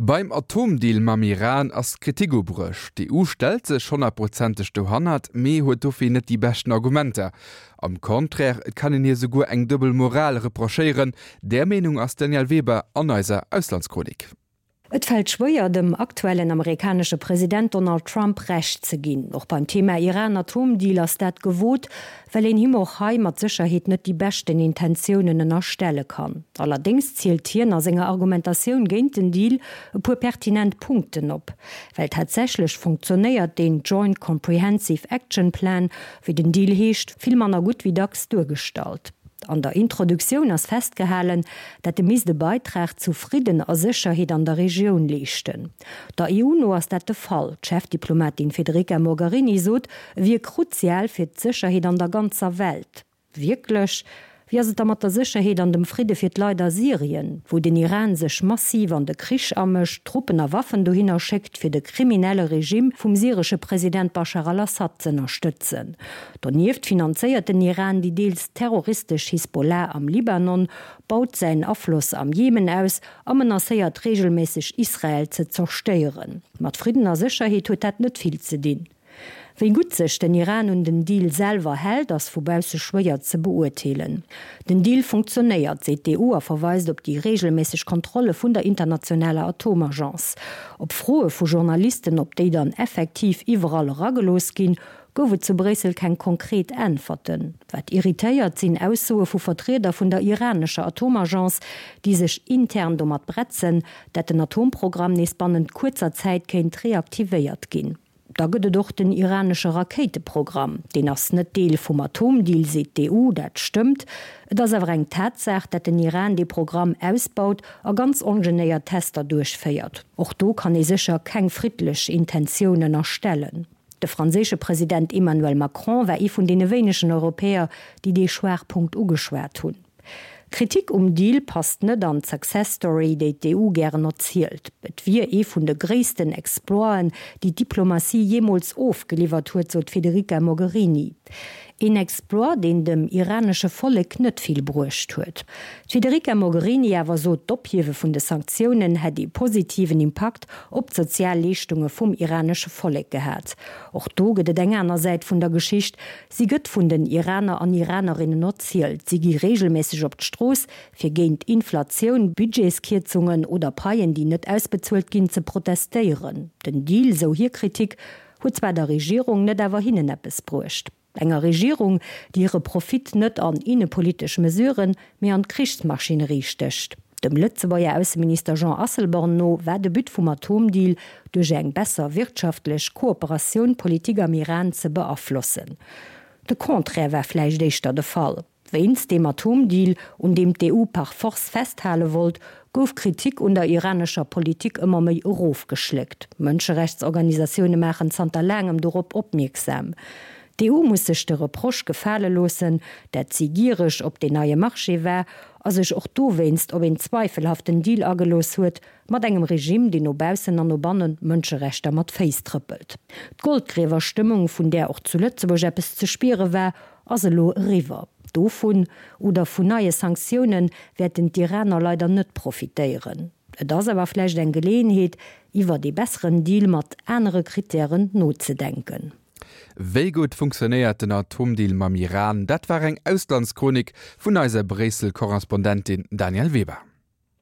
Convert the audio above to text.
Beim Atomdeal mam Iran ass Kritik ubruecht. D'EU stellt sech honnertprozenteg dohannert, mee huet dofir net déi beschten Argumenter. Am Contraire, et kann een hir souguer eng duebel Moral reprochéieren. Där Meenung ass d'Danièle Weber an eiser Auslandschronik. Et fält schwéier, dem aktuellen amerikanesche President Donald Trump Recht ze ginn. Och beim Thema Iran-Atomdeal ass dat gewot, well een him och hei mat Sécherheet net déi beschten Intentiounen ënnerstelle kann. Allerdéngs zielt hien a senger Argumentatioun géint den Deal e puer pertinent Punkten op. Well tatsächlech funktionéiert deen Joint Comprehensive Action Plan, wéi den Deal heescht, vill manner gutt wéi dacks duergestallt. An der Introduktioun ass festgehalen, dat e misst e Beitrag zu Fridden a Sécherheet an der Regioun leeschten. Der EU no ass dat de Fall. D'Chefdiplomatin Federica Mogherini sot, e wier kruzial fir d'Sécherheet an der ganzer Welt. Wierklech? Wéi ass et da mat der Sécherheet an dem Fridde fir d'Leit a Syrien, wou den Iran sech massiv an de Krich amëscht, Truppen a Waffen dohinner schéckt, fir de kriminelle Regime vum syresche President Bashar al-Assad z'ënnerstëtzen? Donieft finanzéiert den Iran déi deels terroristesch Hisbollah am Libanon, baut säin Afloss am Jemen aus a menacéiert reegelméisseg Israel ze zerstéieren. Mat Fridden a Sécherheet huet dat net vill ze dinn. Wéi gutt sech den Iran un den Deal selwer hält, ass vu bausse schwéier ze beurteelen. Den Deal funktionéiert, seet d'EU a verweist op déi reegelméisseg Kontrolle vun der internationaler Atomagence. Op Froe vu Journalisten, ob déi dann effektiv iwwerall eragelooss ginn, gouf et zu Bréissel keng konkret Äntwerten. Wat irritéiert, sinn Aussoe vu Vertrieder vun der iranescher Atomagence, déi sech intern domat bretzen, dat den Atomprogramm nees bannent kuerzer Zäit kéint reaktivéiert ginn. Da gëtt et och den iranesche Rakéiteprogramm. Deen ass net Deel vum Atomdeal, seet d'EU. Dat stëmmt. Et ass awer eng Tatsaach, dat den Iran dee Programm ausbaut a ganz ongenéiert Tester duerchféiert. Och do kann ee sécher keng friddlech Intentioun ënnerstellen. De franséische President Emmanuel Macron war ee vun deene wéinegen Europäer, déi dee Schwaachpunkt ugeschwat hunn. D'Kritik um Deal passt net an d'Success Story, déi d'EU gären erzielt. Et wier ee vun de gréissten Exploiten, déi d'Diplomatie jeemools ofgeliwwert huet, sot d'Federica Mogherini. Een Exploit, deen dem iranesche Vollek net vill bruecht huet. D'Federica Mogherini awer sot, d'Ophiewe vun de Sanktiounen hätt ee positiven Impakt op d'sozial Leeschtunge vum iranesche Vollek gehat. Och do gëtt et eng aner Säit vun der Geschicht, Si gëtt vun den Iraner an Iranerinnen erzielt. Si gi reegelméisseg op d'Strooss, fir géint Inflatioun, Budgetskierzungen oder Paien, déi net ausbezuelt ginn, ze protestéieren. Den Deal, sou hir Kritik, huet zwar der Regierung, net awer hinnen eppes bruecht. Enger Regierung, déi hire Profit net an innepolitesch Mesuren, mee an d'Krichsmaschinerie stécht. Dem Lëtzebuerger Ausseminister Jean Asselborn no war de But vum Atomdeal, duerch eng besser wirtschaftlech Kooperatioun d'Politik am Iran ze beaflossen. De Contraire war vläicht éischter de Fall. Wéinst deem Atomdeal, un deem d'EU par force festhale wollt, gouf d'Kritik un der iranescher Politik ëmmer méi erofgeschléckt. Mënscherechtsorganisatioune maachen zanter laangem dorop opmierksam. D'EU muss sech de Reproche gefale loossen, dat si giereg op deen neie Marché war a sech och dowéinst op een zweifelhaften Deal agelooss huet mat engem Regime, deen no baussen an no bannen d'Mënscherechter mat Féiss trëppelt. D'Goldgriewerstëmmung, vun där och zu Lëtzebuerg eppes ze spiere war, ass elo eriwwer. Dovun, oder vun neie Sanktiounen, wäerten d'Iraner leider net profitéieren. Et ass awer vläicht eng Geleeënheet, iwwert ee besseren Deal mat anere Krittären nozedenken. Wéi gutt funktionéiert den Atomdeal mam Iran? Dat war eng Auslandschronik vun eiser Bréissel-Korrespondentin Danièle Weber.